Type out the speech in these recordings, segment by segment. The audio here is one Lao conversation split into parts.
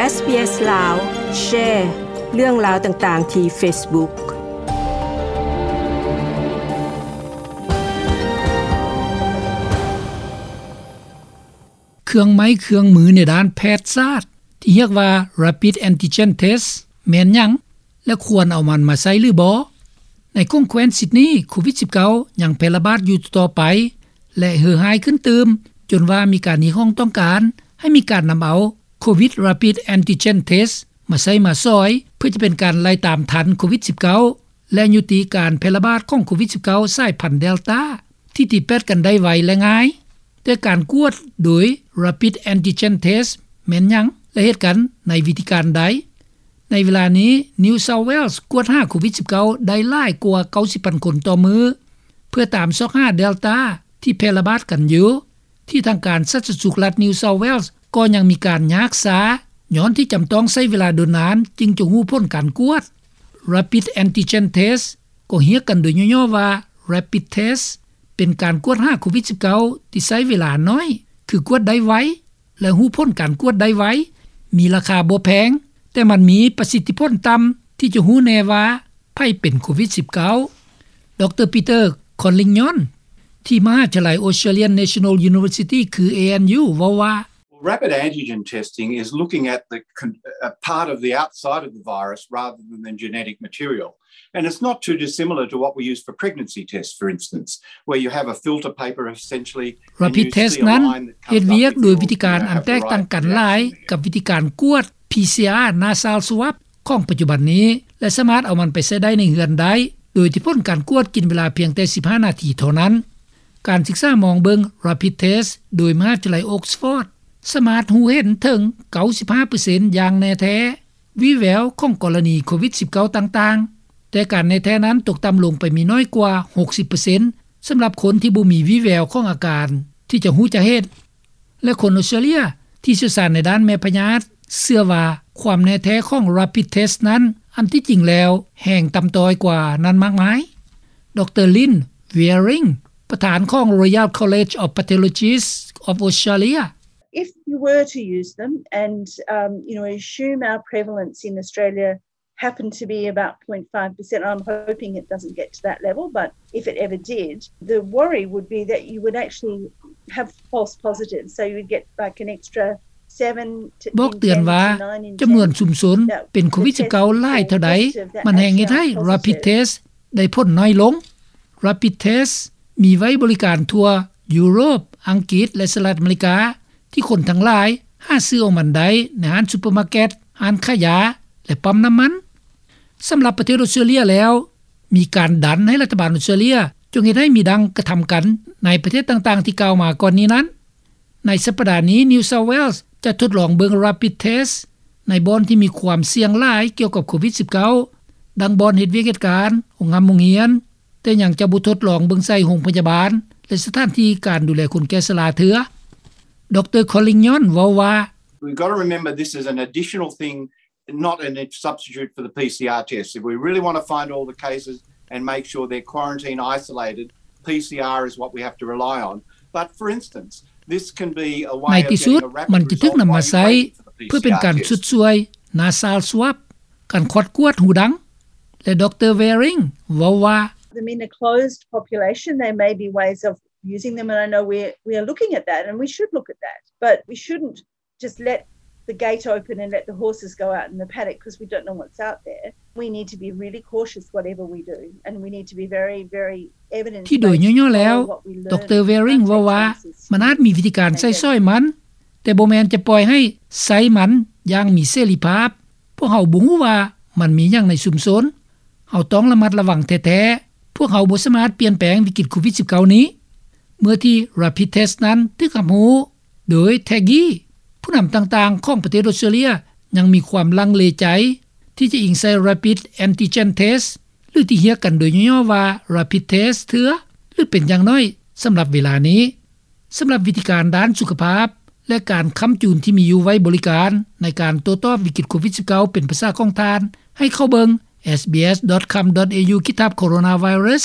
ເອສບີເອສ ລາວ ແຊເລື່ອງລາວຕ່າງໆທີ່ເຟສບຸກ. ເຄື່ອງໄມ້ເຄື່ອງມືໃນດ້ານແພດສາດ ທີ່ຮຽກວ່າ Rapid Antigen Test ແມ່ນຫຍັງ ແລະ ຄວນເອົາມັນມາໃຊ້ຫຼືບໍ່? ໃນຂົງແຄວ້ນຊິດນີ ໂຄວິດສິບເກົ້າ ຍັງແຜ່ລະບາດຢູ່ຕໍ່ໄປ ແລະ ເຫື່ອຮ້າຍຂຶ້ນຕື່ມ ຈົນວ່າມີການຮຽກຮ້ອງຕ້ອງການໃຫ້ມີການນຳເອົາ Covid Rapid Antigen Test ມາໃຊ້ມາສອຍ ເພື່ອຈະເປັນການໄລ່ຕາມທັນໂຄວິດສິບເກົ້າ ແລະ ຍຸຕິການແຜ່ລະບາດຂອງໂຄວິດສິບເກົ້າ ສາຍພັນ Delta ທີ່ຕິດແປດກັນໄດ້ໄວ ແລະ ງ່າຍ. ແຕ່ການກວດໂດຍ Rapid Antigen Test ແມ່ນຫຍັງ ແລະ ເຮັດກັນໃນວິທີການໃດ? ໃນເວລານີ້ New South Wales ກວດຫາໂຄວິດສິບເກົ້າ ໄດ້ຫຼາຍກວ່າເກົ້າສິບພັນຄົນຕໍ່ມື້ ເພື່ອຕາມຊອກຫາ Delta ທີ່ແຜ່ລະບາດກັນຢູ່ ທີ່ທາງການສາທາລະນະສຸກລັດ New South Wales ກໍຍັງມີການຍາກຊ້າ ຍ້ອນທີ່ຈຳຕ້ອງໃຊ້ເວລາດົນນານຈຶ່ງຈະຮູ້ຜົນການກວດ. Rapid Antigen Test ກໍຮຽກກັນໂດຍຫຍໍ້ໆວ່າ Rapid Test ເປັນການກວດຫາໂຄວິດສິບເກົ້າ ທີ່ໃຊ້ເວລາໜ້ອຍ ຄືກວດໄດ້ໄວ ແລະ ຮູ້ຜົນການກວດໄດ້ໄວ, ມີລາຄາບໍ່ແພງ, ແຕ່ມັນມີປະສິດທິຜົນຕ່ຳ ທີ່ຈະຮູ້ແນ່ວ່າໃຜເປັນໂຄວິດສິບເກົ້າ. ດຣ Peter Collignon ທີ່ມະຫາວິທະຍາໄລ Australian National University ຄື ANU ເວົ້າວ່າ Rapid antigen testing is looking at the con- a part of the outside of the virus rather than the genetic material. And it's not too dissimilar to what we use for pregnancy tests, for instance, where you have a filter paper essentially. Rapid test ນັ້ນເຮັດວຽກໂດຍວິທີການອັນແຕກຕ່າງກັນຫຼາຍກັບວິທີການກວດ PCR nasal swab ຂອງປັດຈຸບັນນີ້ ແລະ ສາມາດເອົາມັນໄປໃຊ້ໄດ້ໃນເຮືອນໄດ້ ໂດຍທີ່ຜົນການກວດກິນເວລາພຽງແຕ່ສິບຫ້ານາທີເທົ່ານັ້ນ. ການສຶກສາມອງເບິ່ງ Rapid Test ໂດຍມະຫາວິທະຍາໄລ Oxford ສາມາດຮູ້ເຫັນເຖິງເກົ້າສິບຫ້າເປີເຊັນຢ່າງແນ່ແທ້ ວີແວວຂອງກໍລະນີໂຄວິດສິບເກົ້າຕ່າງໆ, ແຕ່ການແນ່ແທ້ນັ້ນຕົກຕ່ຳລົງໄປມີນ້ອຍກວ່າຫົກສິບເປີເຊັນ ສຳລັບຄົນທີ່ບໍ່ມີວີແວວຂອງອາການທີ່ຈະຮູ້ຈະເຫັນ ແລະ ຄົນອອສເຕຣເລຍທີ່ຊ່ຽວຊານໃນດ້ານແມ່ພະຍາດເຊື່ອວ່າຄວາມແນ່ແທ້ຂອງ Rapid Test ນັ້ນ ອັນທີ່ຈິງແລ້ວແຮ່ງຕ່ຳຕ້ອຍກວ່ານັ້ນມາກມາຍ. ດຣ Lynn Wearing ປະທານຂອງ Royal College of Pathologists of Australia If you were to use them and, um, you know, assume our prevalence in Australia happened to be about zero point five percent, I'm hoping it doesn't get to that level, but if it ever did, the worry would be that you would actually have false positives. So you would get, like, an extra seven to ບອກເຕືອນວ່າຈຳນວນຊຸມຊົນເປັນໂຄວິດສິບເກົ້າຫຼາຍເທົ່າໃດ ມັນແຮ່ງເຮັດໃຫ້ Rapid Test ໄດ້ຜົນໜ້ອຍລົງ. Rapid Test ມີໄວ້ບໍລິການທົ່ວຢູໂຣບ, ອັງກິດ ແລະ ສະຫະລັດອາເມລິກາ ທີ່ຄົນທັງຫຼາຍຫາຊື້ເອົາມັນໄດ້ໃນຮ້ານຊຸບເປີມາເກັດ, ຮ້ານຂາຍຢາ ແລະ ປ້ຳນ້ຳມັນ. ສຳລັບປະເທດອອສເຕຣເລຍແລ້ວ ມີການດັນໃຫ້ລັດຖະບານອອສເຕຣເລຍຈົ່ງເຮັດໃຫ້ມີດັ່ງກະທຳກັນໃນປະເທດຕ່າງໆທີ່ກ່າວມາກ່ອນນີ້ນັ້ນ. ໃນສັບປະດານີ້ New South Wales ຈະທົດລອງເບິ່ງ Rapid Test ໃນບ່ອນທີ່ມີຄວາມສ່ຽງຫຼາຍກ່ຽວກັບໂຄວິດສິບເກົ້າ ດັ່ງບ່ອນເຮັດວຽກເຮັດການ, ໂຮງຮຳໂຮງຮຽນ, ແຕ່ຍັງຈະບໍ່ທົດລອງເບິ່ງໃສ່ໂຮງພະຍາບານ ແລະ ສະຖານທີ່ການດູແລຄົນແກ່ຊະລາເທື່ອ. ດຣ Collignon ເວົ້າວ່າ We've got to remember this is an additional thing, not a substitute for the PCR test. If we really want to find all the cases and make sure they're quarantined, isolated, PCR is what we have to rely on. But for instance, this can be a way of getting a rapid result while you wait for the PCR test. ໃນທີ່ສຸດມັນຈະຖືກນຳມາໃຊ້ເພື່ອເປັນການຊົດຊ່ວຍ nasal swab ການຄອດກວດຫູດັງ ແລະ ດຣ Wearing ເວົ້າວ່າ Them in a closed population, there may be ways of using them, and I know we're, we're looking at that, and we should look at that. But we shouldn't just let the gate open and let the horses go out in the paddock 'cause we don't know what's out there. We need to be really cautious whatever we do, and we need to be very, very evidence-based. ທີ່ໂດຍຫຍໍ້ໆແລ້ວ ດຣ Wearing ເວົ້າວ່າ ມັນອາດມີວິທີການໃຊ້ສອຍມັນ ແຕ່ບໍ່ແມ່ນຈະປ່ອຍໃຫ້ໃຊ້ມັນຢ່າງມີເສລີພາບ. ພວກເຮົາບໍ່ຮູ້ວ່າມັນມີຫຍັງໃນຊຸມຊົນ. ເຮົາຕ້ອງລະມັດລະວັງແທ້ໆ. ພວກເຮົາບໍ່ສາມາດປ່ຽນແປງວິກິດໂຄວິດສິບເກົ້ານີ້. ເມື່ອທີ່ Rapid Test ນັ້ນຖືກຮັບຮູ້ໂດຍ Taggy ຜູ້ນຳຕ່າງໆຂອງປະເທດອອສເຕຣເລຍຍັງມີຄວາມລັງເລໃຈທີ່ຈະອີງໃສ່ Rapid Antigen Test ຫຼືທີ່ຮຽກກັນໂດຍຫຍໍ້ໆວ່າ Rapid Test ເທື່ອ ຫຼືເປັນຢ່າງໜ້ອຍສຳລັບເວລານີ້. ສຳລັບວິທີການດ້ານສຸຂະພາບ ແລະ ການຄ້ຳຈູນທີ່ມີຢູ່ໄວ້ບໍລິການໃນການໂຕ້ຕອບວິກິດໂຄວິດສິບເກົ້າເປັນພາສາຂອງທ່ານ ໃຫ້ເຂົ້າເບິ່ງ sbs.com.au/coronavirus.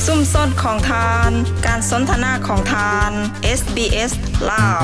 ຊຸມຊົນຂອງທ່ານ, ການສົນທະນາຂອງທ່ານ, SBS ລາວ.